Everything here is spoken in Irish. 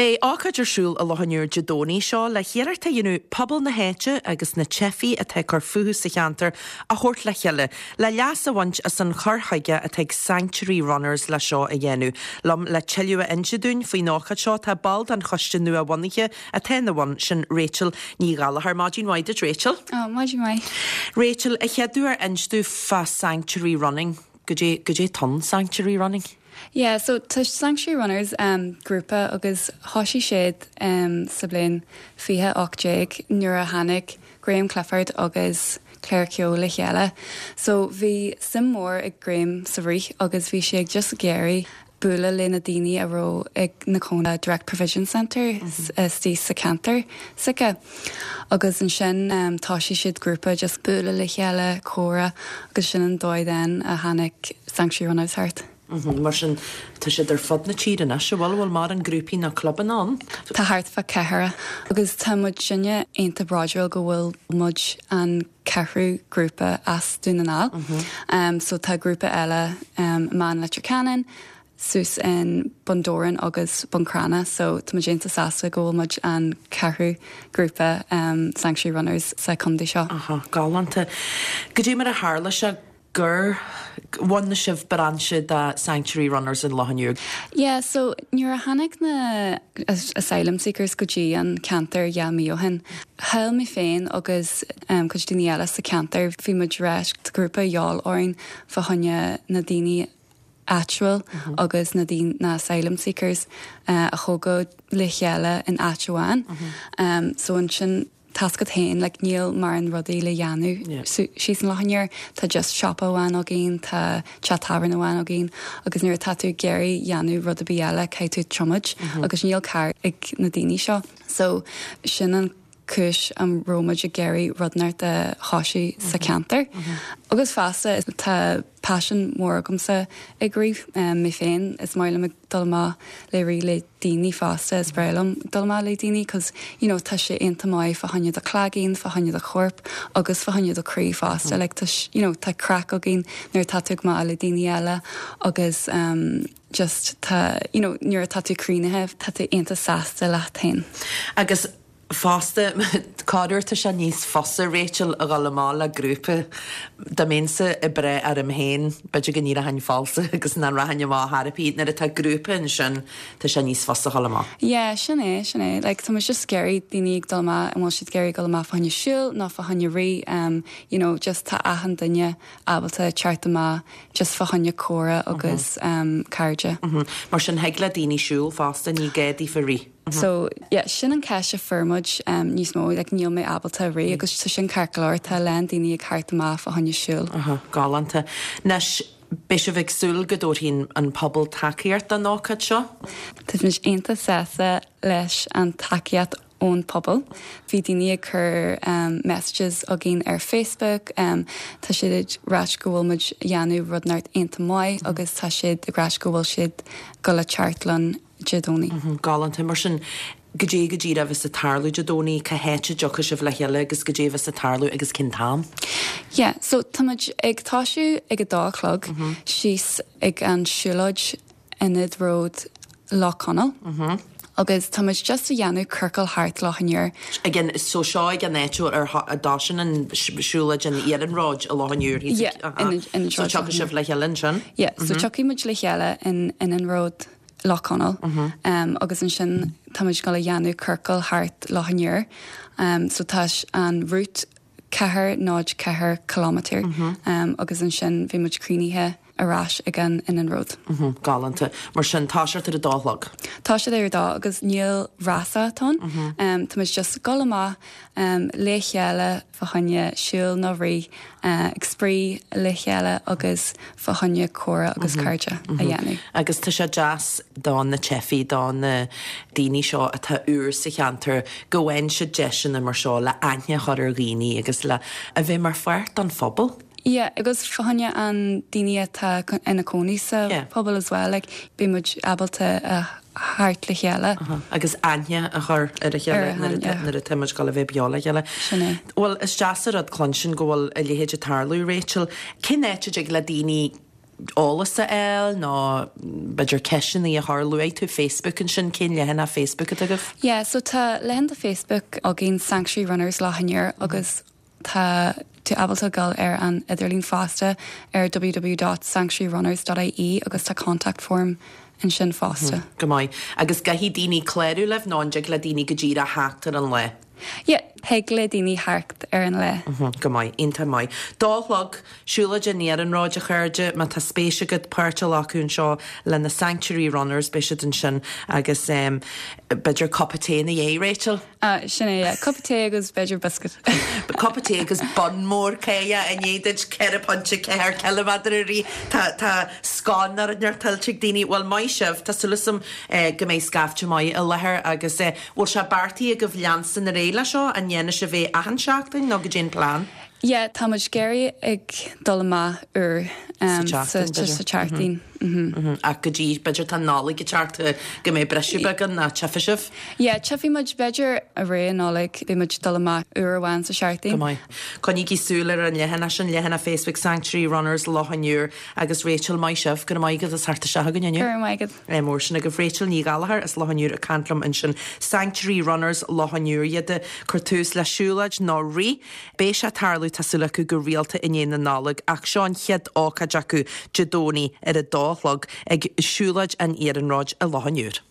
Beidh ócáid ar siúl i Loch an Iúir Dé Domhnaigh seo le hiarracht a dhéanamh pobal na háite agus na teifigh atá ag cur fúthu sa cheantar a thabhairt le chéile le leas a bhaint as an chur chuige atá ag Sanctuary Runners le seo a dhéanamh. Liom le tuilleadh a inse dúinn faoin ócáid seo tá ball den choiste nua-bhunaithe atá ina bhun, sin Rachel Ní Ghallchóir. Maidin mhaith duit Rachel. Oh, maidin mhaith. Rachel, a chéaduair inis domh fá Sanctuary Running. Goidé, goidé atá in Sanctuary Running? Yeah, so tá Sanctuary Runners um, grúpa agus thoisigh siad um, sa bhliain 2018 nuair a tháinig Graham Clifford agus Claire Keogh le chéile. So bhí suim mór ag Graham sa rith agus bhí sé ag just ag iarraidh bualadh le na daoine a raibh ina gcónaí Direct Provision Centre istigh sa cheantar s'aige. Agus ansin thoisigh siad grúpa just bualadh le chéile, comhrá agus sin an dóigh then a tháinig Sanctuary Runners thart. Mar sin tá siad ar fud na tíre anois, an bhfuil? Bhfuil mórán grúpaí nó clubanna ann? Tá thart fá ceathracha agus tá muidinne iontach bródúil go bhfuil muid an ceathrú grúpa as Dún na nGall. So tá grúpa eile i mBeann Leitir Ceanainn, suas in Bun Dobhráin agus Bun Cranncha so tá muid iontach sásta go bhfuil muid an ceathrú grúpa Sanctuary Runners sa chontae seo. Aha, galánta. Goidé mar a tharla sé gur bhunaigh sibh brainse de Sanctuary Runners in Loch an Iúir? Yeah, so nuair a tháinig na asylum seekers go dtí an ceantar 2 mí ó shin, shíl mé féin agus cuid daoine eile sa cheantar, bhí muid ag rá tá grúpa a dhíobháil orainn fá choinne na daoine áitiúil agus na daoine, na asylum seekers a thógáil le chéile in áit amháin. So ansin Tá 's agat féin, like níl mórán rudaí le dhéanamh síos in Loch an Iúir, tá just siopa amháin againn, tá teach tábhairne amháin againn agus nuair atá tú ag iarraidh dhéanamh rud ar bith eile caithfidh tú tiomáint agus níl carr ag na daoine seo. So sin an cúis a raibh muid ag iarraidh rud inteacht a thoisiú sa cheantar. Agus fosta tá paisean mór agamsa ag rith, mé féin, is maith liom ag dul amach le rith le daoine fosta, is breá liom dul amach le daoine cos you know tá sé iontach maith fá choinne do chloigeann, fá choinne do chorp agus fá choinne do chroí fosta like tá you know tá craic againn nuair atá tú ag amach le daoine eile agus um just tá you know nuair atá tú críochnaithe tá tú iontach sásta leat féin. Agus Fosta, corruair tá sé níos fusa, Rachel, a dhul amach le grúpa. Dá mbeinnse ag brath orm féin, b'fhéidir go n-éireochainn falsa agus nach rachainn amach ar chor ar bith. Nuair atá grúpa ansin, tá sé níos fusa a dhul amach. Yeah, sin é, sin é. Like, tá muid just ag iarraidh daoine ag dul amach, an bhfuil siad ag iarraidh dul amach fá choinne siúl nó fá choinne rith, um, you know, just tá achan duine ábalta teacht amach just fá choinne comhrá agus um, cairde. Mar sin, thig le daoine siúl fosta, ní gá daofa rith. So, yeah, sin an ceist a fuair muid níos mó, like níl mé ábalta rith agus tá sin ceart go leor, tá a lán daoine ag theacht amach fá choinne siúl. Aha, galánta. Anois, beidh sibh ag súil go dtabharfaidh an pobal tacaíocht don ócáid seo? Tá muid iontach sásta leis an tacaíocht ón pobal. Bhí daoine ag cur messages againn ar Facebook, tá siad ag ráit go bhfuil muid ag dhéanamh rud inteacht iontach maith agus tá siad ag ráit go bhfuil siad ag dul a teacht linn. Dé Domhnaigh. Galánta. Mar sin, goidé go díreach a bheas ag tarlú Dé Domhnaigh, cá háit a dtiocfaidh sibh le chéile agus goidé a bheas ag tarlú agus cén t-am? Yeah, so tá muid ag toisiú ag a dó a chlog síos ag an siúlóid Ionad Road Loch Conaill agus tá muid just a dhéanamh ciorcal thart Loch an Iúir. Ag an, so seo ag an áit ar a dtosaíonn an siúlóid an iarnróid i Loch an Iúir thíos ag, Yeah, in Ionad So Road. tiocfaidh sibh le chéile ansin? Yeah, so tiocfaidh muid le chéile in Ionad Road Loch Conaill agus ansin tá muid ag dul a dhéanamh ciorcal thart Loch an Iúir. So tá an route 4 0 4 kilometre agus ansin bhí muid críochnaithe ar ais ag an iarnród. Galánta. Mar sin, toiseacht ar a dó a chlog. Toiseacht ar a dó agus níl rása ann. Tá muid just ag dul amach le chéile fá choinne siúl nó rith, ag spraoi le chéile agus fá choinne comhrá agus cairde a dhéanamh. Agus tá sé deas do na teifigh, do na daoine seo atá úr sa cheantar, go bhfaigheann siad deiseanna mar seo le aithne a chur ar dhaoine agus le a bheith mar pháirt den phobal. Yeah, agus fá choinne an daoine atá ina cónaí sa phobal as well, like beidh muid ábalta a theacht le chéile. Agus aithne a chur ar a chéile nuair atá muid ag dul a bheith beo le chéile. Sin é. Bhuel, is deas an rud cluinstin go bhfuil a leithéid ag tarlú, Rachel. Cén áit a dtig le daoine. eolas a fháil nó b'fhéidir ceisteanna a chur, luaigh tú Facebook ansin, cén leathanach Facebook atá agaibh? Yeah, so tá leathanach Facebook againn Sanctuary Runners Loch an Iúir agus tá tú ábalta dul ar an idirlíon fosta ar www dot sanctuaryrunners dot ie agus tá contact form ansin fosta. Go maith. Agus caithfidh daoine clárú libh nó an dtig le daoine go díreach theacht ar an lá? Yeah, thig le daoine theacht ar an lá. Go maith, iontach maith. Dó a chlog, siúlóid an iarnróid, a chairde, má tá spéis agat páirt a ghlacadh anseo le na Sanctuary Runners, beidh siad ansin agus b'fhéidir cupa tae ina dhiaidh, Rachel? Ah, sin é, yeah. Cupa tae agus b'fhéidir biscuit. Cupa tae agus bun mór cáidhe i ndiaidh duit 4.4 ciliméadar a rith. Tá, tá scone nó rud inteacht tuillte ag daoine. Bhuel, maith sibh, tá súil agam go mbeidh scaifte maith i láthair agus bhfuil sé beartaithe agaibh leanstan ar aghaidh leis seo? An ndéanfaidh sibh é achan seachtain nó goidé an plean? Yeah, tá muid ag iarraidh ag dul amach uair sa tseachtain, b'fhéidir. Sa tseachtain, mhm. Ach go dtí, b'fhéidir tá an Nollaig ag teacht, go mbeidh briseadh beag ann, nó tchífidh sibh? Yeah, tchífidh muid, b'fhéidir i rith an Nollaig, beidh muid ag dul amach uair amháin sa seachtain. Go maith. Coinnígí súil ar an leathanach sin, leathanach Facebook Sanctuary Runners Loch an Iúir agus Rachel, maith sibh, go raibh maith agat as theacht isteach chugainn inniu. Go raibh maith agat. Ádh mór sin agaibh. Rachel Ní Ghallchóir as Loch an Iúir ag caint liom ansin. Sanctuary Runners Loch an Iúir iad ag cur tús le siúlóid nó rith. Beidh sé ag tarlú, tá súil acu, go rialta i ndiaidh na Nollag ach seo an chéad ócáid acu Dé Domhnaigh ar a dó a chlog ag Siúlóid an Iarnróid i Loch an Iúir.